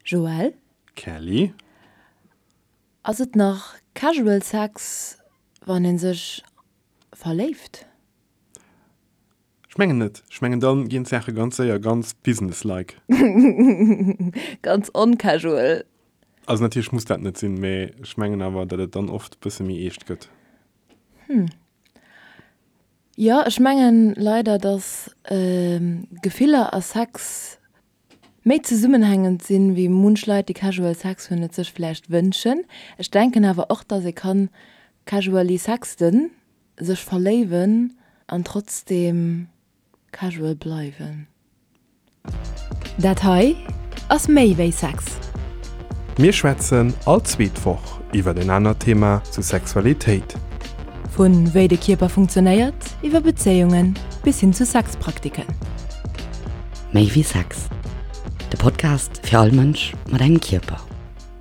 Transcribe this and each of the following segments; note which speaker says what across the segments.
Speaker 1: Joël?
Speaker 2: Kelly?
Speaker 1: Ass et nach Casual Sex, wann ee sech verléift?
Speaker 2: Ech mengen net. Ech mengen dann ginn d'Saache ganz séier ganz business-like.
Speaker 1: Ganz oncasual.
Speaker 2: Also natierlech muss dat net sinn, mee ech mengen awer, datt et dann oft bësse méi eescht gëtt.
Speaker 1: Hm. Jo, ech mengen leider, datt Gefiller a Sex méi zesummenhängend sinn, wéi munch Leit, déi casual Sex hunn, et sech vläicht wënschen. Ech denken awer och, dass ee kann casually sexten, sech verléiwen an trotzdeem casual bleiwen. Dat hei ass méi wéi Sex.
Speaker 2: Mir schwätzen all zweet Woch iwwert en anert Thema zu Sexualitéit.
Speaker 1: Vu wéi de Kierper funktionéiert, iwwer Bezéiungen bis hin zu Sexpraktiken.
Speaker 3: Méi wéi Sex, de Podcast fir all Mënsch mat engem Kierper.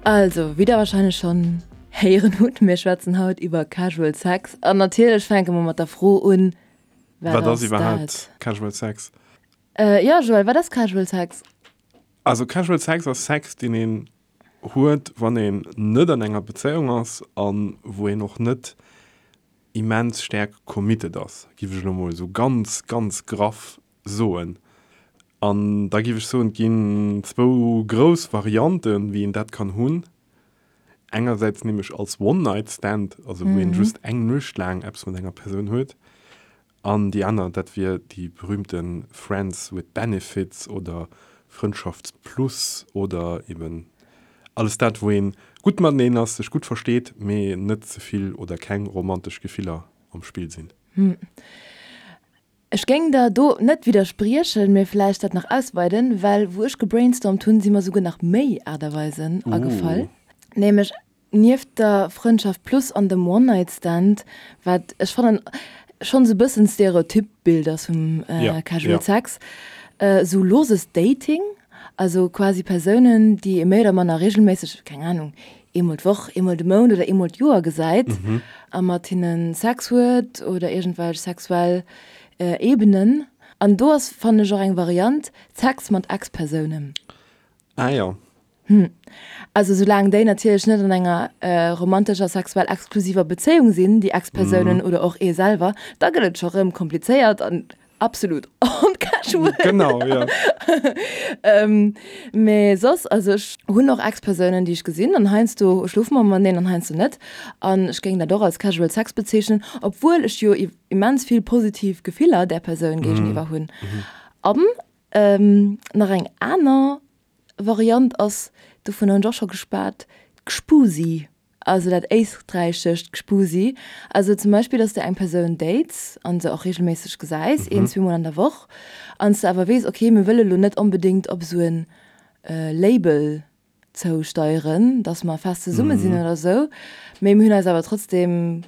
Speaker 1: Also, wéi der warscheinlech schonn héieren hutt, mir schwätzen haut iwwer Casual Sex. An natierlech fänke mer mat der Fro un,
Speaker 2: Wat ass iwwerhaapt Casual Sex?
Speaker 1: Jo, Joël, wat ass Casual Sex?
Speaker 2: Also Casual Sex ass Sex, deen een huet, wann een net an enger Bezéiung ass a wou een och net immens staark committed ass, giff ech elo mol esou ganz, ganz graff soen. An da giff ech soen, et ginn zwou grouss Varianten, wéi een dat kann hunn. Engersäits nämlech als One-Night-Stand, also wou een just eng Nuecht laang eppes mat enger Persoun huet. An déi aner, dat wier déi berühmte Friends with Benefits oder Frëndschaft plus oder eben alles dat, wou een gutt mateneen ass, sech gutt versteet, mee net ze vill oder keng romantesch Gefiller am Spill sinn.
Speaker 1: Ech géing der do net widderspriechen, mee vläicht dat nach ausweiden, well wou ech gebrainstormt hunn, si mer souguer nach méi Aart a Weisen agefall. Nämlech Nieft der Frëndschaft plus an dem One-Night-Stand, wat ech fannen schonn sou bëssen d'Stereotyp Bild ass vum Casual Sex, sou loses Dating, also quasi Persounen déi ee méi oder manner regelméisseg, keng Ahnung, eemol d'Woch, eemol de Mount oder eemol d'Joer gesäit a mat hinne Sex huet oder iergendwelch sexuell Ebenen. An do ass fannen ech och eng Variant, Sex mat Ex-Persounen.
Speaker 2: Ah jo.
Speaker 1: Hm. Also soulaang déi natierlech net an enger romantescher, sexuell exklusiver Bezéiung sinn, déi Ex-Persounen oder och ee selwer, da gëtt et scho rëm komplizéiert an absolut oncasual.
Speaker 2: Genau, jo.
Speaker 1: Mee soss, also ech hunn och Ex-Persounen, déi ech gesinn an heiansdo schlofe mer mateneen an heiansdo net. An ech géing dat och als casual Sex bezeechnen, obwuel ech jo immens vill positiv Gefiller där Persoun géigeniwwer hunn. An nach eng aner Variant ass, dovun hunn ech och scho gespat, d'Gspusi, also dat éisträichescht Gspusi. Also zum Beispill, dass de eng Persoun dates an se och regelméisseg gesäis, een, zweemol an der Woch, an s de awer weess, okay, mir wëlle lo net onbedéngt op esou en Label zousteieren, dass mer fest zesumme sinn oder esou, mee mir hunn eis awer trotzdem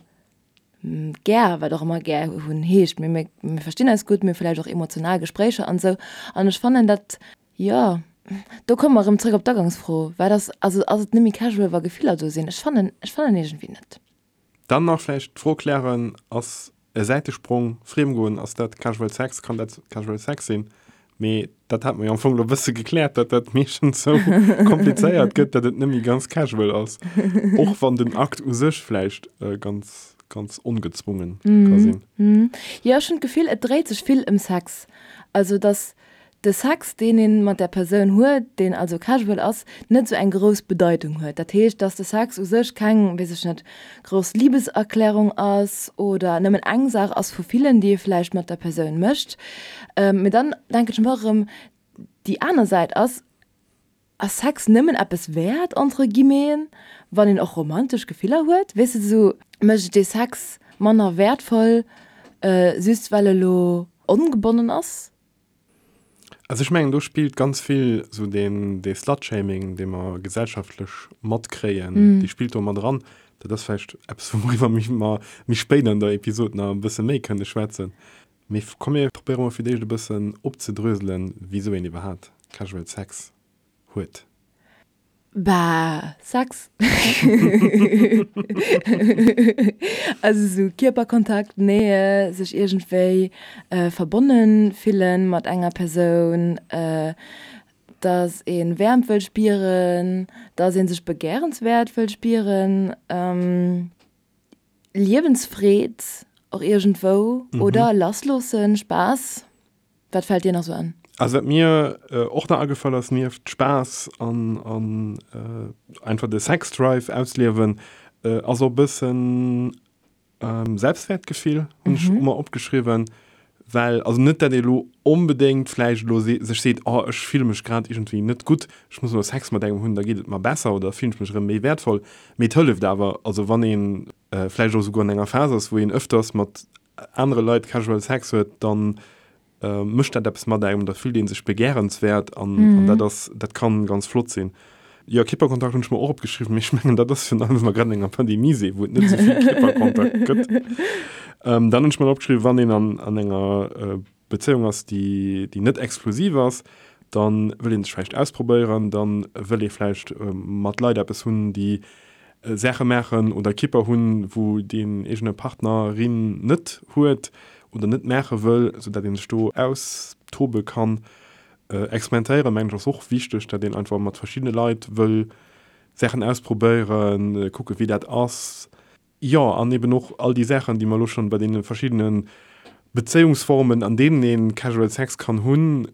Speaker 1: gär, wat och ëmmer gär hunn heescht, mee mir verstinn eis gutt, mir hu vläicht och emotional Gespréicher an esou. An ech fannen dat Jo, do komme mer erëm zrëck op d'Agangsfro, Wat ass, also ass et nëmme casual, wa Gefiller do sinn? Ech fannen, ech fannen iergendwéi net.
Speaker 2: Dann nach vläicht d'Fro klären, Ass e Säitesprong, Friemgoen, ass dat casual Sex? Kann dat casual Sex sinn? Mee dat hate mer jo am Fong elo e bësse gekläert, datt dat meeschtens esou komplizéiert gëtt, datt et net méi ganz casual ass, och wann den Akt u sech vläicht ganz, ganz ongezwungen ka sinn.
Speaker 1: Jo, ech hunn d'Gefill, et dréit sech vill ëm Sex. Also datt de Sex, deen ee mat där Persoun huet, deen also casual ass, net esou eng grouss Bedeitung huet. Dat heescht, dass de Sex u sech keng, weess ech net, grouss Liebeserklärung ass oder nëmmen eng Saach ass vu villen, déi ee vläicht mat der Persoun mécht. Mee dann denken ech mer och erëm, déi aner Säit ass, Ass Sex nëmmen eppes wäert, entre guillemeten, wann een och romantesch Gefiller huet? Weess de, sou mécht et dee Sex manner wäertvoll, just well e lo ongebonnen ass?
Speaker 2: Also ech mengen do spillt ganz vill sou deen dee Slutshaming, dee mer gesellschaftlech matkréien, dee spillt do mat eran. Dat ass vläicht eppes wouriwwer mer méi spéit an der Episod nach e bësse méi kënne schwätzen. Mee komm mir probéiere mol fir d'éischt e bëssen opzedröselen, wisou een iwwerhaapt Casual Sex huet.
Speaker 1: Bah, Sex. Also sou Kierperkontakt, Nähe, sech iergendwéi verbonne fillen mat enger Persoun. Dass ee Wäermt wëll spieren, dass ee sech begärenswäert wëll spieren, Liewensfreed och iergendwou, oder? Lassloossen, Spaass. Wat fält dir nach sou an?
Speaker 2: Also wat mir och nach agefall ass, nieft Spaass an an einfach de Sexdrive ausliewen, ass och e bëssen Selbstwäertgefill hunn ech mer opgeschriwwen, well also net dat ee lo onbedéngt vläicht elo sech seet, oh ech fille mech grad iergendwéi net gutt, ech muss elo Sex mat engem hunn, da geet et mer besser oder fillen ech mech erëm méi wäertvoll, mee et hëlleft awer, also wann ee vläicht och esouguer an enger Phas ass, wou een ëfters mat anere Leit casual Sex huet, dann mécht dat eppes mat engem, da fillt ee sech begärenswäert an an dat ass, dat kann ganz flott sinn. Jo, Kierperkontakt hunn ech mer och opgeschriwwen, mee ech mengen, dat ass virun allem, well mer grad an enger Pandemie sinn, wou et net esou vill Kierperkontakt gëtt. Dann hunn ech mer opgeschriwwen, wann een an an enger Bezéiung ass, déi déi net exklusiv ass, dann wëll ee sech vläicht ausprobéieren, dann wëll ee vläicht mat Leit eppes hunn, déi Saache maachen oder Kipper hunn, wou deen eegene Partner, rin net huet oder net maache wëll, sou dat een sech do austobe kann. Experimentéieren, mengen ech, ass och wichteg, dat een einfach mat verschiddene Leit wëll Saachen ausprobéieren, kucke wéi dat ass. Jo, an eben och all déi Saachen, déi mer elo schonn bei deene verschiddene Bezéiungsformen, an deenen ee Casual Sex kann hunn,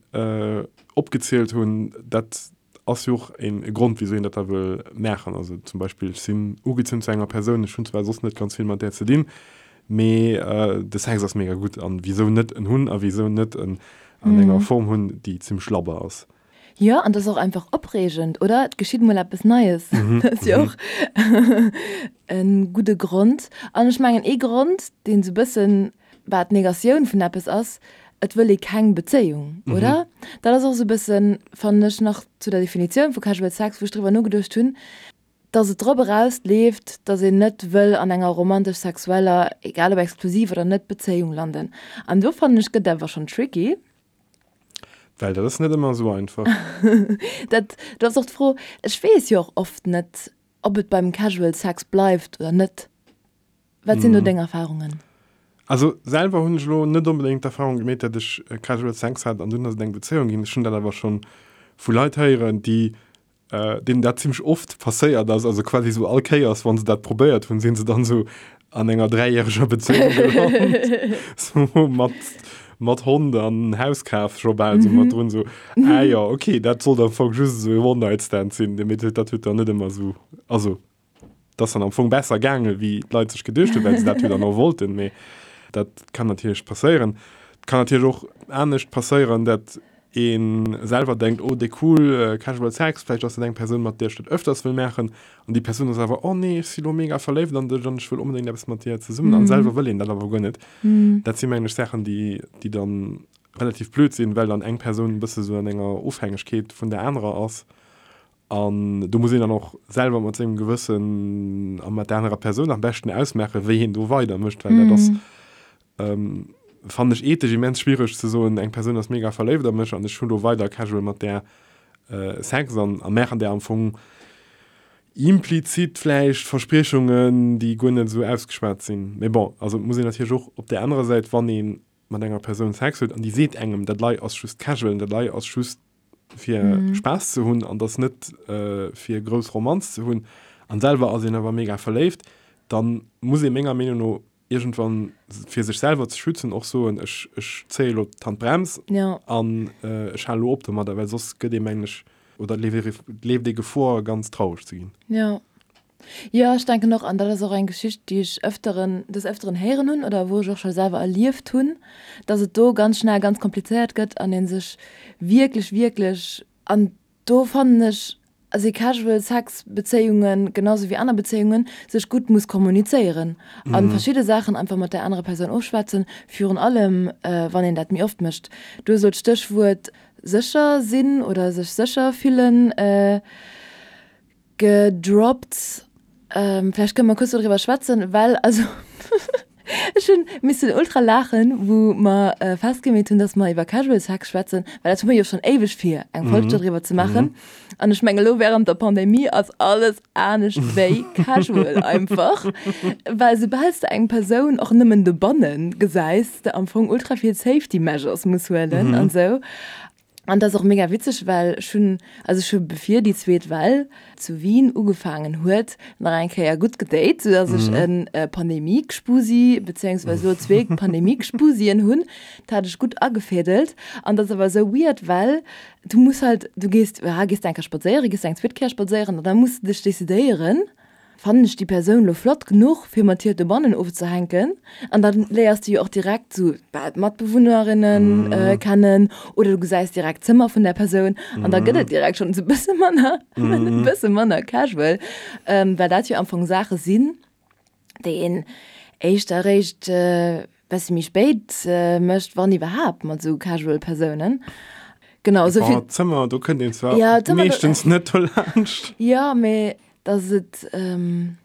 Speaker 2: opgezielt hunn, dat ass jo och e Grond, wisou een dat da wëll maachen. Also zum Beispill, ech sinn ugezunn zu enger Persoun, ech hunn zwar soss net ganz vill mat där ze dinn, mee de Sex ass mega gutt an wisou net en hunn a wisou net en an enger Form hunn, déi zimmlech labber ass.
Speaker 1: Jo, an et ass och einfach opreegend, oder? Et geschitt mol eppes Neies. Dat ass jo och e gudde Grond. An ech mengen, ee Grond, deen esou e bëssen, wat d'Negatioun vun eppes ass, et wëll ee keng Bezéiung, oder? Dat ass och esou e bëssen, fannen ech, nach zu der Definitioun vu Casual Sex, wou ech driwwer nogeduecht hunn, dass et drop erausleeft, dass een net wëll an enger romantesch-sexueller, egal ob exklusiv oder net, Bezéiung landen. An do, fannen ech, gëtt et awer schonn tricky.
Speaker 2: Well dat ass net ëmmer esou einfach.
Speaker 1: Dat, do ass och d'Fro, ech weess jo och oft net, ob et beim Casual Sex bleift oder net. Wat sinn do deng Erfarungen?
Speaker 2: Also selwer hunn ech elo net onbedéngt d'Erfarung gemeet, datt ech Casual Sex hat an dunn ass et eng Bezéiung ginn. Ech hunn dat awer schonn vu Leit héieren, déi deenen dat zimmlech oft passéiert ass, also quasi sou all Kéiers wann se dat probéiert hunn, sinn se dann sou an enger dräijäreger Bezéiung gelant, sou mat mat Hond an Hauskaf scho bal sou mat drun, sou ah jo okay, dat sollt am Fong just esou e One-Night-Stand sinn, mee dat huet dann net ëmmer sou, also Et ass dann am Fong besser gaange wéi d'Leit sech geduecht hunn, well se dat jo dann och wollten. Mee dat kann natierlech passéieren. Et kann natierlech och anescht passéieren, dat ee selwer denkt, oh déi cool, Casual Sex, vläicht ass dat eng Persoun, mat där ech dat ëfters wëll maachen. An déi Persoun ass awer, oh nee, ech si lo mega verléift an dech an ech wëll onbedéngt eppes mat dir zesummen. An selwer wëll een dat awer guer net. Dat si mengen ech Saachen, déi, déi dann relativ blöd sinn, well dann eng Persoun e bësse sou an enger Ofhängegkeet vun där anerer ass. An do muss een dann och selwer mat sengem Gewëssen a mat der anerer Persoun am beschten ausmaachen, wéi een do weidermécht, well dat ass, fannen ech, ethesch immens schwiereg ze soen, eng Persoun ass mega verléift a mech an ech hunn do weider casual mat där Sex an a maachen där am Fong implizit vläicht Verspriechungen, déi guer net esou ausgeschwat sinn. Mee bon, also et muss een natierlech och op där anerer Säit, wann ee mat enger Persoun Sex huet an déi seet engem, dat lei ass just casual an dat lei ass just fir mm. Spaass ze hunn an das net äh, fir grouss Romanz ze hunn an selwer ass een awer mega verléift, dann muss ee menger Meenung no irgendwann fir sech selwer ze schützen och soen ech ech zéie lo d'Handbrems
Speaker 1: ja.
Speaker 2: an äh, ech hale lo op domadder, well soss gëtt ee mengen ech oder leeft ee Gefor ganz traureg ze ginn.
Speaker 1: Ja. Jo, ech denken och, an dat ass och eng Geschicht, déi ech ëfteren, des Ëfteren héieren hunn oder wou ech och scho selwer erlieft hunn, dass et do ganz schnell ganz komplizéiert gëtt an ee sech wierklech, wierklech, an do fannen ech, si Casual Sex Bezéiungen, genau sou wéi aner Bezéiungen, sech gutt muss kommunizéieren a verschidde Saachen einfach mat där anerer Persoun ofschwätzen, virun allem wann een dat méi oft mécht. Do esou d'Stéchwuert sécher sinn oder sech sécher fillen. Gedroppt. Vläicht kënne mer kuerz doriwwer schwätzen, well also ech hunn missen ultra laachen, wou mer festgemeet hunn, dass mer iwwer Casual Sex schwätzen, well dat hu mer jo schonn éiweg vir, eng Folg doriwwer ze maachen. An ech mengen elo wärend der Pandemie ass alles anescht wéi casual einfach, well soubal s de eng Persoun och nëmmen dobanne gesäis, de am Fong ultra vill Safety Measures muss huelen an esou. An dat ass och mega witzeg, well ech hunn, also ech hu bevir déi zweet Well zu Wien ugefaangen huet, nach eng Kéier gutt gedate, sou dass ech e Pandemie-Gspusi, beziéungsweis elo zwee Pandemie-Gspusien hunn. Dat hat ech gutt agefädelt. An dat ass awer esou weird, well du muss halt, du gees, ja, gees de eng Kéier spadséieren, gees de eng zweet Kéier spadséieren an da muss de dech decidéieren, Fannen ech déi Persoun lo flott genuch fir mat hir dobannen ofzehänken? An dann léiers de jo och direkt sou bal d'Matbewunnerinnen kennen oder du gesäis direkt d'Zëmmer vun där Persoun an da gëtt et direkt schonn sou bësse manner, bësse manner casual, well dat jo am Fong Saache sinn, déi een éischter eréischt Bessi méi spéit mécht, wann iwwerhaapt, mat esou casual Persounen. Genau, esou vill.
Speaker 2: Bon, d'Zëmmer, do kënnt een zwar ja, meeschtens net dolaanscht.
Speaker 1: Ja, mee dass et.
Speaker 2: Ähm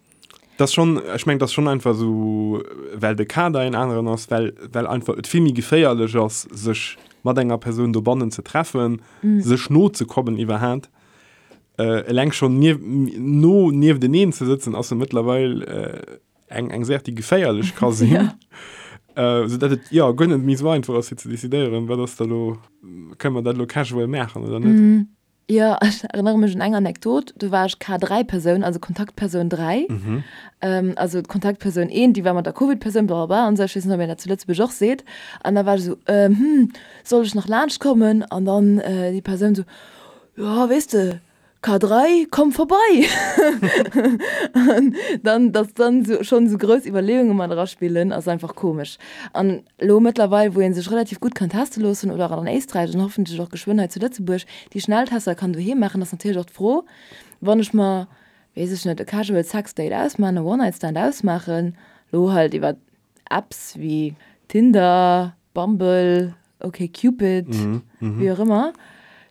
Speaker 2: Das schon, ech meng, das schon einfach so, well de Kader en aneren ass, well, well einfach et vill méi geféierlech ass, sech mat enger Persoun dobannen ze treffen, mm. sech no ze kommen iwwerhaapt. Äh, eleng schon nief, no niefteneen ze sëtzen, ass jo mëttlerweil äh, eng eng Saach déi geféierlech ka sinn. Ja. Äh, so dat et ja guer net méi so einfach ass fir ze decidéieren, wat ass da lo kënne mer dat lo casual maachen oder net.
Speaker 1: Mm. Ja, ech erënnere mech un eng Anekdot, do war ech K3-Persoun, also Kontaktpersoun 3.
Speaker 2: Mhm.
Speaker 1: Ähm, also d'Kontaktpersoun 1, déi war mat der Covid-Persoun, blablabla an esou, ech weess net, ob een dat zu Lëtzebuerg och seet. An da war ech esou, ähm, hm, soll ech nach laanscht kommen? An dann äh, déi Persoun esou, ja, weess de, K3, komm vorbei! An dann, dass dann sou schonn sou grouss Iwwerleeunge mat eraspillen, ass einfach komesch. An elo mëttlerweil, wou ee sech relativ gutt kann teste loossen, oder an Éisträich an hoffentlech och geschwënn hei zu Lëtzebuerg déi Schnelltester kann doheem maachen, ass natierlech och d'Fro, wann ech mer, weess ech net, e casual sex date ausmaachen, e one night stand ausmaachen, elo halt iwwer Apps wéi Tinder, Bumble, OkCupid, wéi och ëmmer,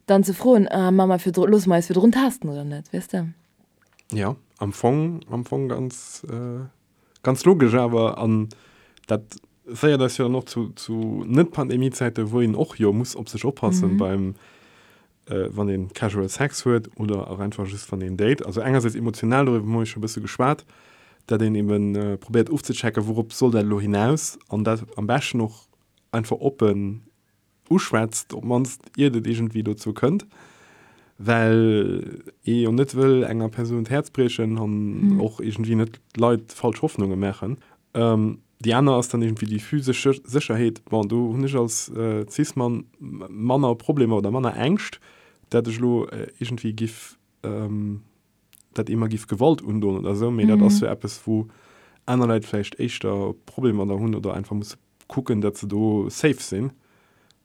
Speaker 1: dann ze froen, ah, ma mer virdru, loosse mer eis virdrun testen oder net, weess de?
Speaker 2: Jo, am Fong, am Fong ganz, ganz logesch awer. An dat féiert eis jo dann och zu, zu Net-Pandemie-Zäiten, wou een och jo muss op sech oppassen beim, wann een casual Sex huet oder och einfach just wann een date. Also engersäits emotional, doriwwer hu mer jo scho e bësse geschwat, dat een eben probéiert ofzechecken, wourop soll dat elo hinaus an dat am beschten och einfach oppen uschwätzt, op d'mannst iert et iergendwéi dozou kënnt, well ee jo net wëll enger Persoun d'Häerz briechen an och iergendwéi net Leit falsch Hoffnunge maachen. Déi aner ass dann iergendwéi déi physesch Sécherheet. Bon, do hunn ech als Cis-Mann manner Problemer oder manner Ängscht, dat ech elo iergendwéi giff, dat ee mer giff Gewalt undoen oder esou, mee dat ass jo eppes, wou aner Leit vläicht éischter Problemer da hunn oder einfach musse kucken, dat se do safe sinn.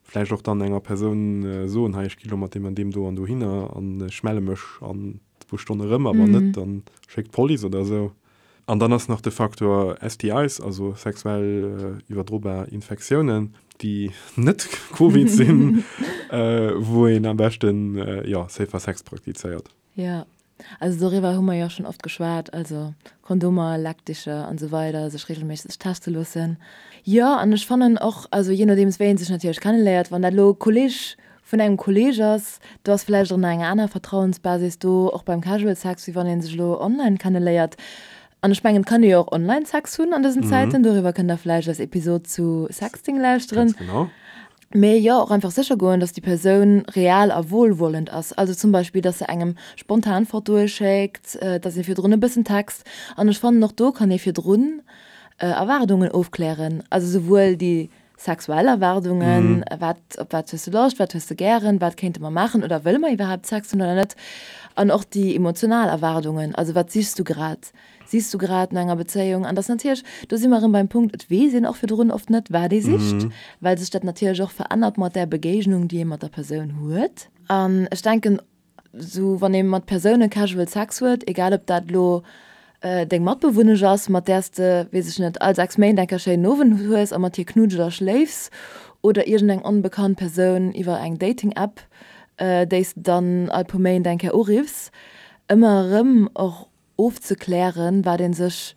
Speaker 2: Vläicht och dann enger Persoun soen, hei ech gi lo mat deem an deem do an dohinner an ech melle mech an zwou Stonne erëm, a wann net, dann schéckt d'Police oder esou. An dann ass nach de Faktor STIs, also sexuell iwwerdrobar Infektiounen, déi net Covid sinn, wou een am beschten, jo, safer Sex praktizéiert.
Speaker 1: Jo, also doriwwer hu mer jo schonn oft geschwat, also Kondomer, Leckdicher an esou weider, sech regelméisseg teste loossen. Jo, an ech fannen och, also jee nodeems wéi ee sech natierlech kenneléiert, wann dat elo e Kolleg vun engem Kolleg ass, do ass vläicht och nach eng aner Vertrauensbasis do, och beim Casual Sex, wéi wann ee sech elo online kenneléiert. An ech mengen, et kann ee jo och online Sex hunn an dësen Zäiten, doriwwer kënnt der vläicht eis Episod zu Sexting lauschteren.
Speaker 2: Ganz genau.
Speaker 1: Mee jo, och einfach sécher goen, dass déi Persoun real a wohlwollend ass. Also zum Beispill, dass se engem spontan Fotoe schéckt, dass ee virdrun e bëssen text. An ech fannen, och do kann ee virdrun Erwaardungen ofklären. Also souwuel déi sexuell Erwaardungen, wat, op wat hues de Loscht, wat hues de gären, wat kéinte mer maachen oder wëlle mer iwwerhaapt Sex hunn oder net? An och déi emotional Erwaardungen, also wat sichs du grad? Sichs du grad no enger Bezéiung? An dat ass natierlech, do si mer erëm beim Punkt, et weess een och virdrun oft net, wat ee sicht, well sech dat natierlech och verännert mat där Begéignung, déi ee mat der Persoun huet. An ech denken, sou wann ee mat Persoune casual Sex huet, egal ob dat elo deng Matbewunnesch ass, mat där s de, weess ech net, all 6 Méint eng Kéier schéinen Owend hues a mat hir knutscht oder schléifs, oder iergendeng onbekannt Persoun iwwer eng Dating-App, déi s de dann all puer Méint eng Kéier uriffs, ëmmer erëm och ofzeklären, wat ee sech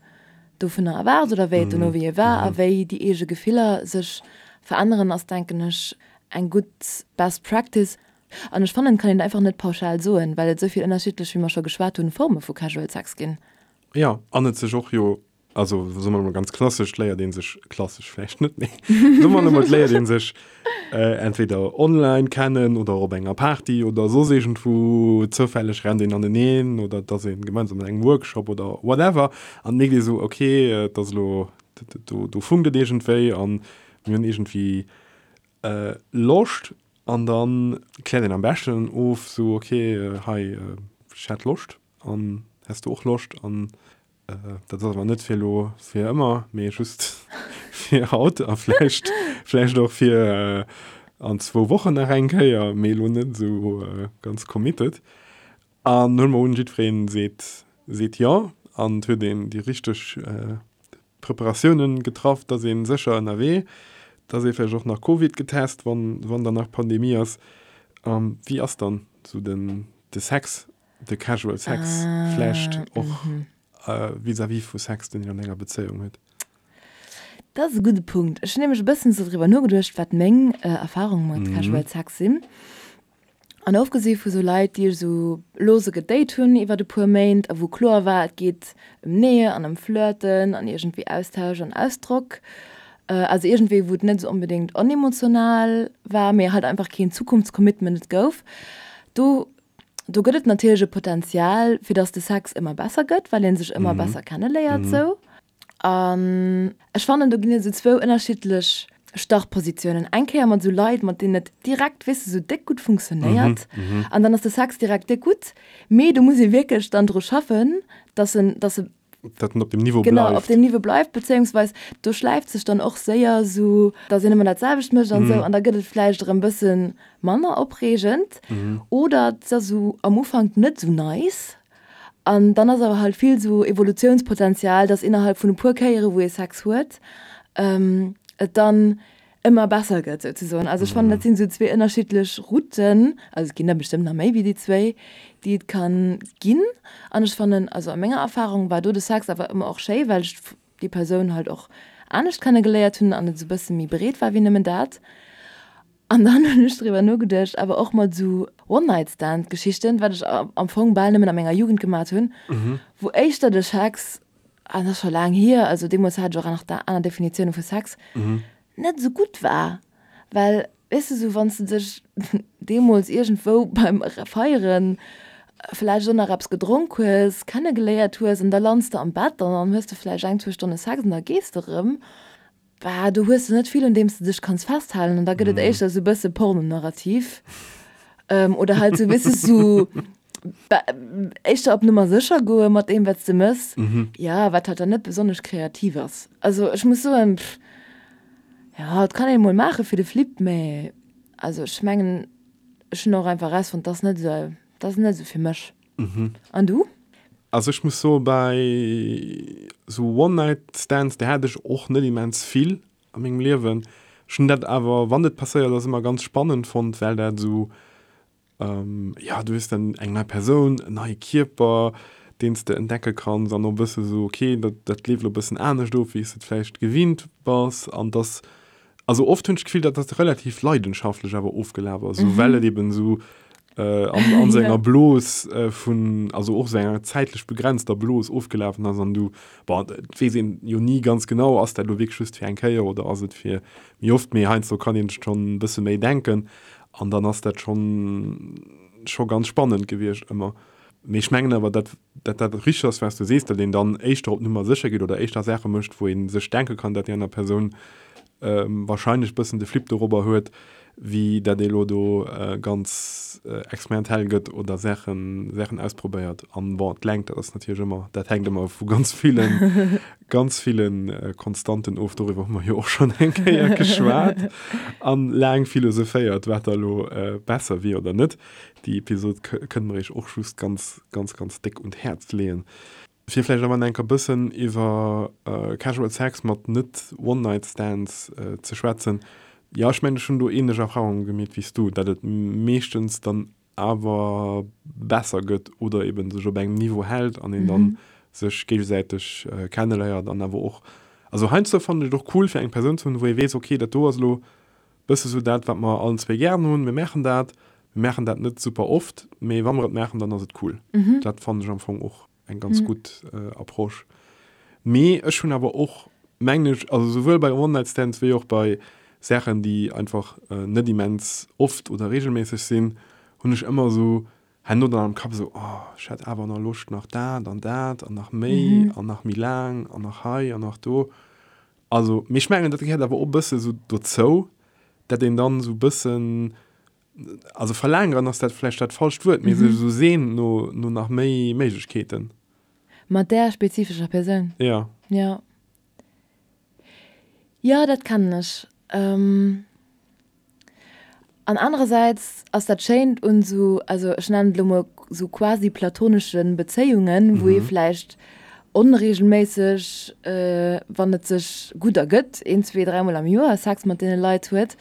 Speaker 1: dovunner erwaart oder wéi et dono wéi ee war a wéi déi eege Gefiller sech veränneren, ass, denken ech, eng gutt Best Practice. An ech fannen, et kann een et einfach net pauschal soen, well et esou vill ënnerschiddlech, wéi mer scho geschwat hunn, Forme vu Casual Sex ginn.
Speaker 2: Jo, an et sech och jo. Also soe mer emol ganz klassesch, et léiert ee sech, klassesch vläicht net, mee soe mer emol, et léiert ee sech entweder online kennen oder op enger Party oder soss iergendwou, zoufälleg rennt een aneneen oder et ass ee gemeinsam an engem Workshop oder whatever an et mierkt ee sou, okay, et ass elo, do do funkt et iergendwéi an mir hunn iergendwéi Loscht an dann kläert een am beschten of sou, okay, hei, ech hätt Loscht an häss du och Loscht an Dat ass awer net fir elo fir ëmmer, mee just fir haut a vläicht, vläicht och fir an zwou Wochen nach eng Kéier, mee elo net esou ganz committed. An huele mer un, jiddweree seet, seet Jo an et huet een déi richteg Preparatiounen getraff, et ass ee sécher ënnerwee, et ass ee vläicht och nach Covid getest, wann, wann dann nach Pandemie ass. Wéi ass dann esou den, de Sex de Casual Sex ah, vläicht och mm -hmm. vis-à-vis vu Sex, den een an enger Bezéiung huet?
Speaker 1: Dat ass e gudde Punkt. Ech hunn nämlech e bëssen esou driwwer nogeduecht, wat meng äh, Erfahrunge mat mm -hmm. Casual Sex sinn. An ofgesi vu sou Leit, déi ech sou lose gedate hunn iwwer e puer Méint a wou kloer war, et geet ëm Nähe an ëm Flirten an iergendwéi Austausch an Ausdrock, äh, also iergendwéi wou et net esou onbedéngt onemotional war, mee halt einfach keen Zukunftscommitment et gouf, do Do gëtt et natierlech e Potenzial, fir dass de Sex ëmmer besser gëtt, well ee sech ëmmer besser kenneléiert sou. An ech fannen, do ginn et esou zwou ënnerschiddlech Startpositiounen. Eng Kéier mat esou Leit, mat deenen et direkt, weess de, sou déck gutt funktionéiert. An dann ass de Sex direkt déck gutt. Mee do muss ee wierklech dann dru schaffen, dass en, dass e
Speaker 2: Dat en op dem Niveau
Speaker 1: genau, bleift. op dem Niveau bleift, beziehungsweis do schläift sech dann och séier esou, dass een ëmmer dat selwecht mécht an esou, an da gëtt et vläicht erëm bësse manner opreegend oder et ass esou am Ufank net esou nice an dann ass awer halt vill esou Evolutiounspotenzial, dass innerhalb vun e puer Kéiere wou ee Sex huet, et dann ëmmer besser gëtt souzesoen. Also ech fannen, dat sinn esou zwee ënnerschiddlech Routen, also et ginn der bestëmmt nach méi wéi déi zwéi, déi et kann ginn. An ech fannen, also a menger Erfahrung war do de Sex awer ëmmer och schéi, well ech déi Persoun halt och anescht kennegeléiert hunn an et esou bësse méi breet war wéi nëmmen dat. An dann hunn ech driwwer nogeduecht, awer och mat esou One-Night-Stand-Geschichten, wat ech am Fong bal nëmmen a menger Jugend gemat hunn, wou éischter de Sex an dat ass scho laang hier, also deemools hat ech och nach aner Definitioune vu Sex, net esou gutt war. Well, weess de, esou wann s de dech deemools iergendwou beim Feieren vläicht och nach eppes gedronk hues, kennegeléiert hues an da lands de am Bett an dann hues de vläicht eng, zwou Stonne Sex an da gees de erëm. Bah, do hues de net vill un deem s de dech kanns festhalen an da gëtt et éischter esou e bësse Pornonarrativ oder halt esou, weess de, esou éischter op Nummer sécher goe mat deem wat s de mëss, ja, wat halt dann net besonnesch kreativ ass. Also ech muss soen, pff, ja, et kann een emol maache fir de Flip, mä also ech mengen, ech hunn och einfach erausfonnt, dat ass net esou, dat ass net esou fir mech. An du?
Speaker 2: Also ech muss soen, bei sou One-Night-Stands, där hat ech och net immens vill a mengem Liewen. Ech hunn dat awer, wann et passéiert ass, ëmmer ganz spannend fonnt, well dat esou, jo, du hues dann eng nei Persoun, en neie Kierper, deen s de entdecke kanns an och e bësse sou, okay, dat, dat leeft elo e bëssen anescht of, wéi s de et vläicht gewinnt bass an dass Also oft hunn ech d'Gefill, datt dat relativ leidenschaftlech awer ofgelaf ass, esou well et eben esou an, an sou enger Blos vun, also och sou enger zäitlech begrenzter Blos ofgelafen ass an du, bon, et weess een jo ni ganz genau, ass dat elo wierklech just fir eng Kéier oder ass et fir méi oft, mee heiansdo kann een sech schonn e bësse méi denken an dann ass dat schonn, scho ganz spannend gewiescht ëmmer. Mee ech mengen awer, datt dat dat richteg ass, wat s du sees, datt een dann éischter op Nummer sécher geet oder éischter Saache mécht, wou ee sech denke kann, datt déi aner Persoun wahrscheinlech bëssen de Flip dorobber huet, wéi datt ee lo do ganz experimentell gëtt oder Saachen, Saachen ausprobéiert. An bon, d'Längt, dat ass natierlech ëmmer, dat hänkt ëmmer vu ganz villen, ganz ville Konstanten of. Doriwwer hu mer jo och schonn eng Kéier geschwat an laang philosophéiert, wat da lo besser wier oder net. Déi Episod kënne mer iech och just ganz, ganz, ganz déck un d'Häerz leeën. Fir vläicht awer nach enker bëssen iwwer Casual Sex mat net One-Night-Stands ze schwätzen, Jo, ech mengen, ech hunn do ähnlech Erfahrunge gemeet wéi s du, dat et meeschtens dann awer besser gëtt oder eben sech op engem Niveau hält an een dann sech géigesäiteg kenneléiert an awer och, also heiansdo fannen ech et och cool fir eng Persoun ze hunn, wou ee weess, okay, dat do ass elo Bësse sou dat, wat mer allen zwéi gären hunn. Mir maachen dat. Mir maachen dat net super oft, mee wa mer et maachen, dann ass et cool. Dat fannen ech am Fong och eng ganz gutt Approche. Mee ech hunn awer och, mengen ech, also souwuel bei One-Night-Stands wéi och bei Saachen, déi einfach net immens oft oder reegelméisseg sinn, hunn ech ëmmer esou herno dann am Kapp esou, oh, ech hätt awer nach Loscht nach dat an dat an nach méi an nach méi laang an nach hei an nach do. Also, mee ech mengen, dat gehéiert awer och e bësse sou dozou, dat een dann esou e bëssen, also verlaangeren ass dat vläicht dat falscht Wuert, mee sech esou seent no, no nach méi Méiglechkeeten.
Speaker 1: Mat där spezifescher Persoun?
Speaker 2: Ja.
Speaker 1: Ja. Jo, dat kennen ech. An anerersäits ass dat Schéint un esou, also ech nennen et elo mol esou quasi platonesche Bezéiungen, wou ee vläicht onreegelméisseg, wann et sech gutt ergëtt, een, zwee, dräimol am Joer Sex mat deene Leit huet,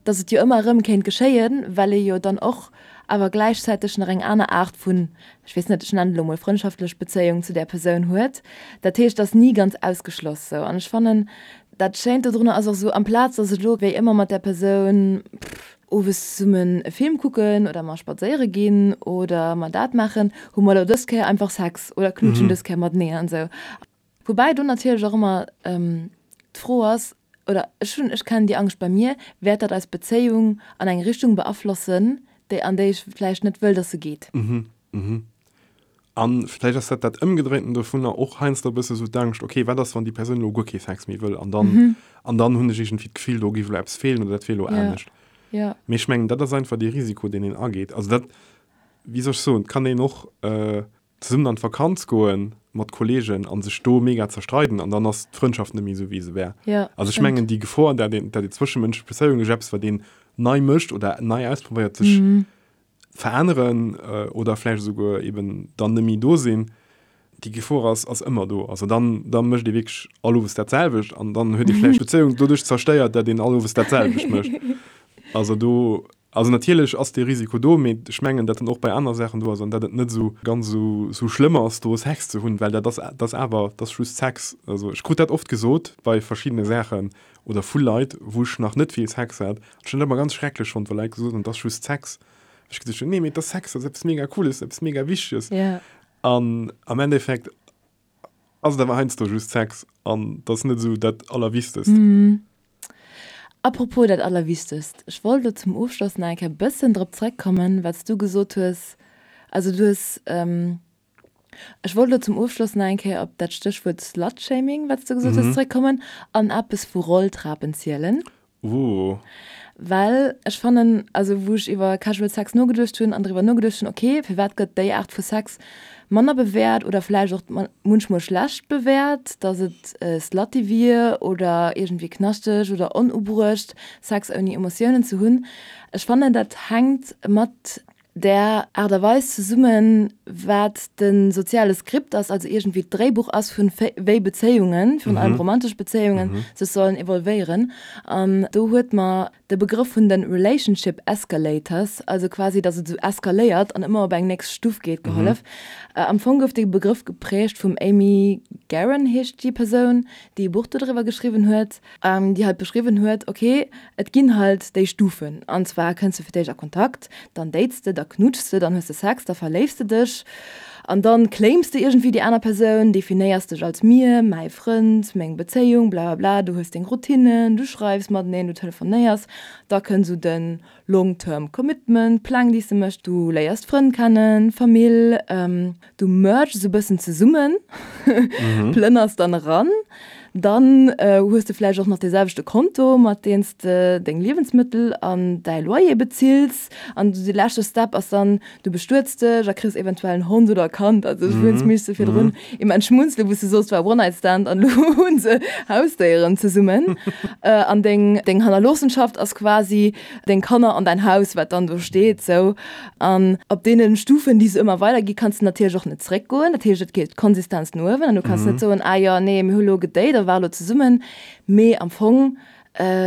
Speaker 1: dass et jo ëmmer erëm kéint geschéien, well ee jo dann och awer gläichzäiteg nach eng aner Aart vun, ech weess net, ech nennen et elo mol frëndschaftlech Bezéiung zu där Persoun huet. Dat heescht, et ass ni ganz ausgeschloss sou. An ech fannen, dat Schéint dodrunner ass och sou, amplaz dass ech elo wéi ëmmer mat där Persoun owes zesummen e Film kucken oder mer spadséiere ginn oder mer dat maachen, hu mer elo dës Kéier einfach Sex oder knutschen dës Kéier mateneen an esou. Woubäi do natierlech och ëmmer d'Fro ass, oder ech hunn, ech kennen déi Angscht bei mir, wäert dat eis Bezéiung an eng Richtung beaflossen, déi, an déi ech vläicht net wëll, dass se geet.
Speaker 2: Mhm, mhm. A vläicht ass dat dat Ëmgedréinten dovunner och heiansdo e bësse sou d'Angscht, okay, wat ass, wann déi Persoun elo guer kee Sex méi wëll an dann, an dann hunn ech iergendwéi d'Gefill, do géif elo eppes feelen oder dat wier elo anescht.
Speaker 1: Ja.
Speaker 2: Mee ech mengen, dat ass einfach dee Risiko, deen een ageet. Also dat, wéi soll ech soen, et kann een och, zesummen an d'Vakanz goen mat Kollegen an sech do mega zerstreiden an dann ass d'Frëndschaft net méi esou wéi se wär.
Speaker 1: Ja,
Speaker 2: Also ech
Speaker 1: stimmt.
Speaker 2: mengen déi Gefor, dat een, dat déi zwëschemënschlech Bezéiung duerch eppes wat een nei mécht oder nei ausprobéiert sech
Speaker 1: Mhm.
Speaker 2: veränneren äh, oder vläicht esouguer eben dann net méi do sinn, déi Gefor ass, ass ëmmer do. Also dann, dann mécht ee wierklech all Owes dat selwecht an dann huet ee vläicht d'Bezéiung doduerch zerstéiert, dat een all Owes dat selwecht mécht. Also do Also natierlech ass dee Risiko do, mee ech mengen, datt en och bei aner Saachen do ass an datt et net esou ganz esou esou schlëmm ass, do Sex ze hunn, well dat ass dat ass awer dat ass just Sex. Also ech krut dat oft gesot bei verschiddene Saachen oder vu Leit, wou ech nach net vill Sex hat. Ech hunn dat ëmmer ganz schrecklech fonnt, wa Leit gesot hunn, et ass just Sex. Ech gesot hunn, nee, mee et ass Sex, dat ass eppes mega Cooles, eppes mega Wichteges. An am Endeffekt Ass et awer heiansdo just Sex an dat ass net esou dat Allerwichtegst.
Speaker 1: Apropos dat Allerwichtegst, ech wollt elo zum Ofschloss nach eng Kéier e bëssen drop zrëckkommen, wat s du gesot hues. Also du hues, ech wollt elo zum Ofschloss nach eng Kéier op dat Stéchwuert Slutshaming, wat s du gesot hues, zrëckkommen an eppes vu Rolltrapen zielen.
Speaker 2: Ooh.
Speaker 1: Well ech fannen, also wou ech iwwer Casual Sex nogeduecht hunn an driwwer nogeduecht hunn, ok, firwat gëtt déi Aart vu Sex manner bewäert oder vläicht och munchmol schlecht bewäert, datt et slutty wier oder iergendwéi knaschteg oder onubruecht, Sex ouni Emotiounen ze hunn. Ech fannen, dat hänkt mat där Aart a Weis zesummen, wat de soziale Skript ass, also iergendwéi d'Dréibuch ass vun wéi Bezéiungen, virun allem romantesch Bezéiungen, sech sollen evolvéieren. An do huet mer de Begrëff vun de Relationship Escalators, also quasi, datt et esou eskaléiert an ëmmer op eng nächst Stuf geet, gehollef. Am Fong gouf dee Begrëff geprägt vum Amy Gahran, heescht déi Persoun, déi e Buch dodriwwer geschriwwen huet. déi halt beschriwwen huet, ok, et ginn halt déi Stufen, an zwar kënns de fir d'éischt a Kontakt, dann dates de, da knutschs de, dann hues de Sex, da verléifs de dech an dann claims de iergendwéi déi aner Persoun, definéiers dech als mir, mäi Frënd, meng Bezéiung, blablabla, du hues deng Routinen, du schreifs mateneen, du telefonéiers, da kënnt esou den Long term commitment, Pläng déi s de méchs, du léiers d'Frënn kennen, d'Famill, du merges e bëssen zesummen, plënners dann eran, dann hues de vläicht och nach dee selwechte Konto, mat deem s de deng Liewensmëttel an däi Loyer bezills an de leschte Step ass dann, du bestuets dech a kriss eventuell en Hond oder e Kand. Also ech hunn misse virdrun immens schmunzelen, wou s du soos, et war e One-Night-Stand an elo hu se Hausdéieren zesummen. An deng deng Hannerloossenschaft ass quasi deng Kanner an däin Haus, wat dann do steet sou. An op deene Stufen, déi se ëmmer weider gi, kanns de natierlech och net zréckgoen. Dat heescht, et geet Konsistenz no uewen an du kanns net soen, ah jo, nee, mir hu lo gedate a ware lo zesummen, mee am Fong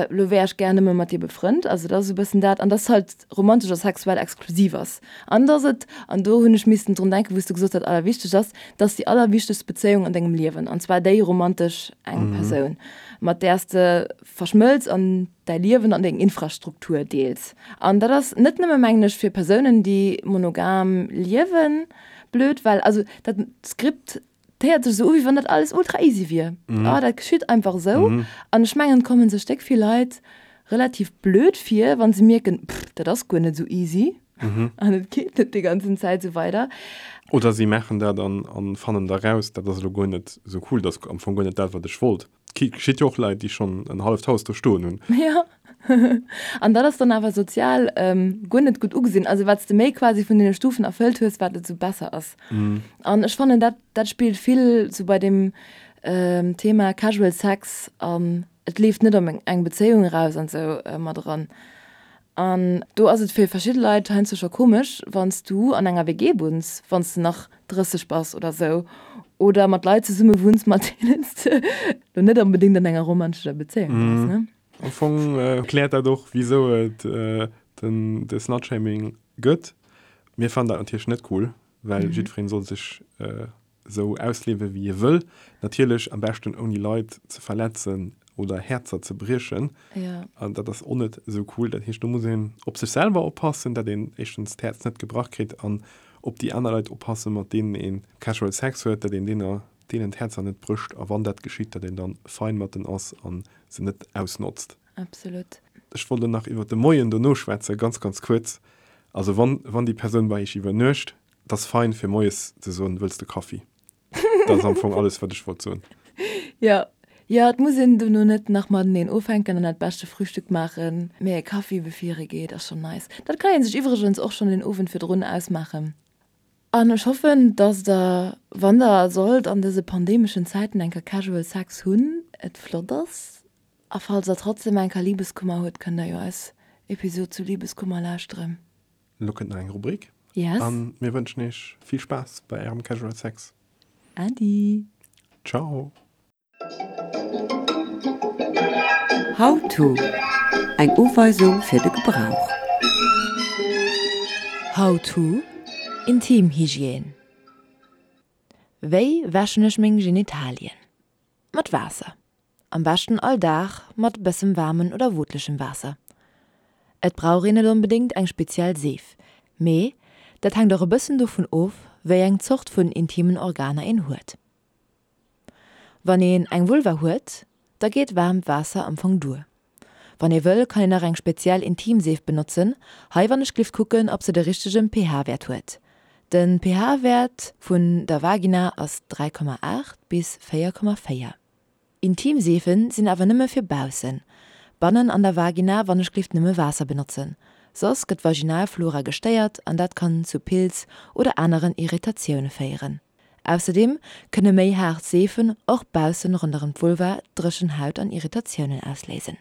Speaker 1: Lo wär ech gär nëmme mat dir befrënnt. Also dat ass esou e bëssen dat. An dass halt romantesch a sexuell exklusiv ass. An dass et, an do hunn ech missten drun denken, wou s de gesot hues, dat Allerwichtegt ass, dass déi allerwichtegst Bezéiung an dengem Liewen, an zwar déi romantesch eng Persoun, mat där s de verschmëlz an däi Liewen an deng Infrastruktur deels. An dat ass net nëmme, mengen ech, fir Persounen, déi monogam liewen, blöd, well also dat Skript. Et héiert sech esou u, wéi wann dat alles ultra easy wier. Oh, dat geschitt einfach esou. An ech mengen, et komme sech déck vill Leit relativ blöd vir, wa se mierken, Pff, dat ass guer net esou easy an et geet net déi ganzen Zäit esou weider.
Speaker 2: Oder si maachen dat an fannen da raus, dat ass elo guer net esou cool, dat ass am Fong guer net dat, wat ech wollt. Et geschitt jo och Leit, déi schonn en halleft Haus do stoen hunn.
Speaker 1: Jo, an dat ass dann awer sozial guer net gutt ugesinn. Also wat s de méi quasi vun deene Stufen erfëllt hues, wat et esou besser ass. An ech fannen, dat, dat spillt vill sou bei deem Thema Casual Sex an et leeft net op eng Bezéiung eraus an esou mat eran. An do ass et fir verschidde Leit heiansdo scho komesch, wann s du an enger WG wunns, wann s de nach 30 bass oder sou, oder mat Leit zesumme wunns, mat deenen s de lo net onbedéngt an enger romantescher Bezéiung bass, ne?
Speaker 2: Am Fong erkläert dat och, wisou et de Slutshaming gëtt. Mir fannen dat natierlech net cool, well jiddwereen soll sech esou ausliewen, wéi e wëll. Natierlech am beschten ouni Leit ze verletzen oder Häerzer ze briechen. An dat ass och net esou cool. Dat heescht, do muss een op sech selwer oppassen, dat een éischtens d'Häerz net gebrach kritt an op déi aner Leit oppassen, mat deenen ee Casual Sex huet, dat een deenen deenen d'Häerzer net brécht a wann dat geschitt, dat een dann fein mat en ass an se net ausnotzt.
Speaker 1: Absolut.
Speaker 2: Ech wollt nach iwwert de Moien dono schwätzen, ganz, ganz kuerz. Also wann, wann déi Persoun bei iech iwwernuecht, 't ass fein fir moies ze soen, wëlls de Kaffi? Dat ass am Fong alles wat ech wollt soen.
Speaker 1: Jo, jo, et muss een dono net nach mateneen ufänken an dat beschte Frühstück maachen, mee e Kaffi bevir e geet ass schonn nice. Dat kann ee sech iwwregens och schonn den Owend virdrun ausmaachen. An ech hoffen, dass der, wann der sollt an dëse pandemeschen Zäiten eng Kéier Casual Sex hunn, et flott ass. A falls der trotzdem eng Kéier Libeskummer hutt, kënnt der jo eis Episod zu Libeskummer lauschteren.
Speaker 2: Elo kënnt nach eng Rubrik.
Speaker 1: Yes.
Speaker 2: An mir wënschen iech vill Spaass bei ärem Casual Sex.
Speaker 1: Äddi.
Speaker 2: Ciao.
Speaker 3: How to, Eng Uweisung fir de Gebrauch.
Speaker 1: How to, Intimhygiène. Wéi wäschen ech meng Genitalien? Mat Waasser. Am beschten all Dag mat e bëssem waarmen oder wootlechem Waasser. Et brauch een net onbedéngt eng speziell Seef, mee dat hänkt och e bëssen dovun of, wéi eng Zort vun intimen Organer een huet. Wann een eng Vulva huet, da geet waarmt Waasser am Fong duer. Wann ee wëll, kann een nach eng speziell Intimseef benotzen, hei wann ech glift kucken, ob se de richtegen pH-Wäert huet. Den pH-Wäert vun der Vagina ass 3,8 bis 4,4. Intimseefen sinn awer nëmme fir baussen. Bannen an der Vagina wann ech glift nëmme Waasser benotzen, soss gëtt d'Vaginalflora gestéiert an dat kann zu Pilz oder aneren Irritatioune féieren. Ausserdeem kënne méi haart Seefen och baussen ronderëm d'Vulva dréchen Haut an Irritatiounen ausléisen.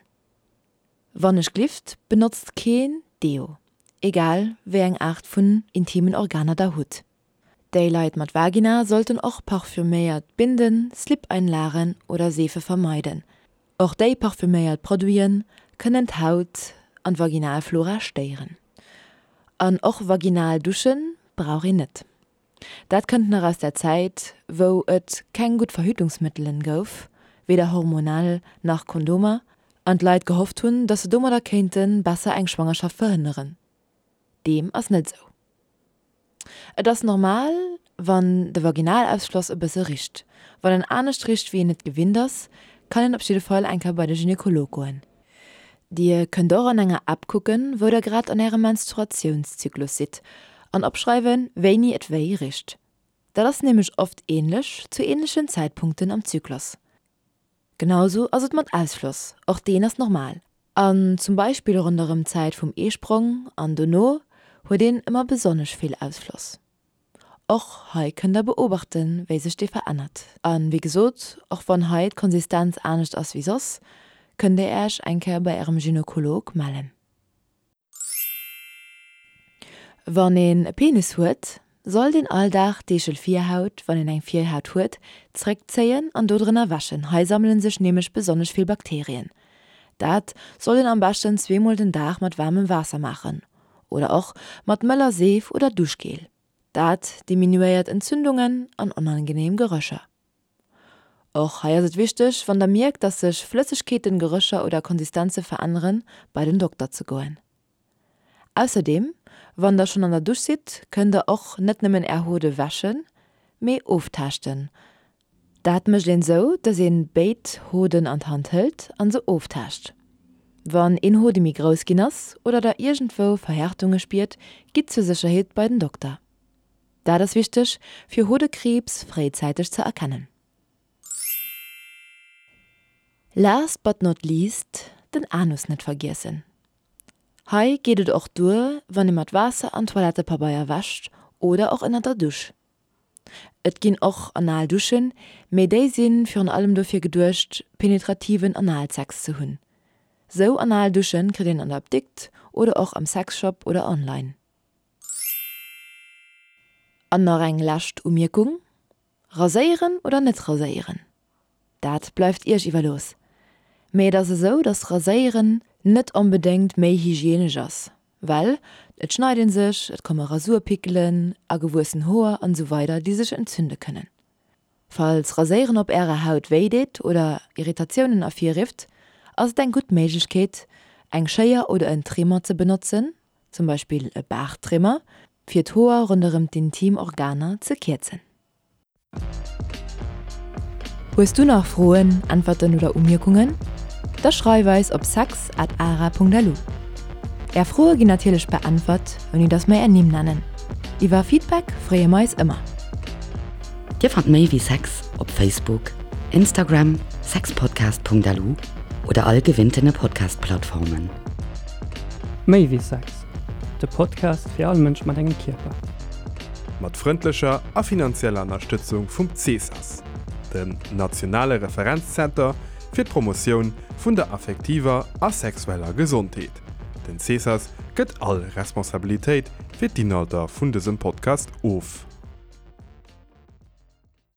Speaker 1: Wann ech glift benotzt keen Deo, egal wéi eng Aart vun intimen Organer der hutt. Déi Leit mat Vagina sollten och parfüméiert Binden, Slip-Einlagen oder Seefe vermeiden. Och déi parfüméiert Produite kënnen d'Haut an d'Vaginalflora stéieren. An och vaginal Dusche brauch een net. Dat kënnt nach aus der Zäit, wou et keng gutt Verhütungsmëttelen gouf, weder hormonell nach Kondomer, an d'Leit gehofft hunn, dass se domadder kéinte besser eng Schwangerschaft verhënneren. Deem ass net esou. Et ass normal, wann de Vaginalausfloss e bësse richt. Wann en anescht richt wéi een et gewinnt ass, kann een op jidde Fall eng Kéier bei de Gynekolog goen. Dir kënnt och an enger App kucken, wou der grad an ärem Menstruatiounszyklus sidd an opschreiwen, wéini et wéi richt. Dat ass nämlech oft änlech zu änlechen Zäitpunkten am Zyklus. Genausou ass et mat Ausfloss, och deen ass normal. An zum Beispill ronderëm d'Zäit vum Eesprong an dono huet een ëmmer besonnesch vill Ausfloss. Och hei kënnt der beobachten, wéi sech dee verännert. A wéi gesot, och wann hei d'Konsistenz anescht ass wéi soss, kënnt dir Äech eng Kéier bei ärem Gynekolog mellen. Wann een e Penis huet, sollt een all Dag d'Eechelvirhaut, wann een eng Virhaut huet, zréckzéien an dodrënner wäschen. Hei sammele sech nämlech besonnesch vill Bakterien. Dat sollt een am beschten zweemol den Dag mat waarmem Waasser maachen oder och mat mëller Seef oder Duschgel. Dat diminuéiert Entzündungen an onangeneem Gerécher. Och hei ass et wichteg, wann der mierkt, dass sech Flëssegkeeten, Gerécher oder Konsistenze veränneren, bei den Dokter ze goen. Ausserdeem, wann der schonn an der Dusch sidd, kënnt der och net nëmmen är Hode wäschen, mee oftaaschten. Dat mécht een sou, dass een béid Hoden an d'Hand hëlt an se oftaascht. Wann een Hode méi grouss ginn ass oder der iergendwou Verhärtunge spiert, gitt zur Sécherheet bei den Dokter. Dat ass wichteg, fir Hodekriibs fréizäiteg ze erkennen. Last but not least, den Anus net vergiessen. Hei geet et och duer, wann ee mat Waasser an Toilettepabeier wäscht oder och ënnert der Dusch. Et ginn och anal Duschen, mee déi si virun allem dofir geduecht, penetrativen Analsex ze hunn. Sou anal Dusche kritt een an der Apdikt oder och am Sexshop oder online. An nach eng lescht Umierkung, Raséieren oder net raséieren, dat bleift iech iwwerlooss. Mee et ass esou, dass Raséieren net onbedéngt méi hygienesch ass, well et schneit een sech, et komme Rasurpickelen, agewuessen Hoer an esou weider déi sech entzünde kënnen. Falls Raséieren op ärer Haut wéi deet oder Irritatiounen ervirrifft, ass et eng gutt Méiglechkeet eng Schéier oder en Trimmer ze benotzen, zum Beispill e Baarttrimmer, fir d'Hoer ronderëm d'intim Organer ze kierzen. Hues du nach Froen, Äntwerten oder Umierkungen? Da schreif eis op sex at ara.lu. Är Froe ginn natierlech beäntwert, ouni dass mer är Nimm nennen. Iwwer Feedback freeë mer eis ëmmer.
Speaker 3: Dir fannt méi wéi Sex op Facebook, Instagram, sexpodcast.lu oder all gewinntene Podcast-Plattformen.
Speaker 4: Méi wéi Sex, de Podcast fir all Mënsch mat engem Kierper.
Speaker 2: Mat frëndlecher a finanzieller Ënnerstëtzung vum CESAS, dem nationale Referenzzenter fir d'Promotioun vun der affektiver a sexueller Gesondheet. Den CESAS gëtt all Responsabilitéit fir d'Inhalter vun dësem Podcast of.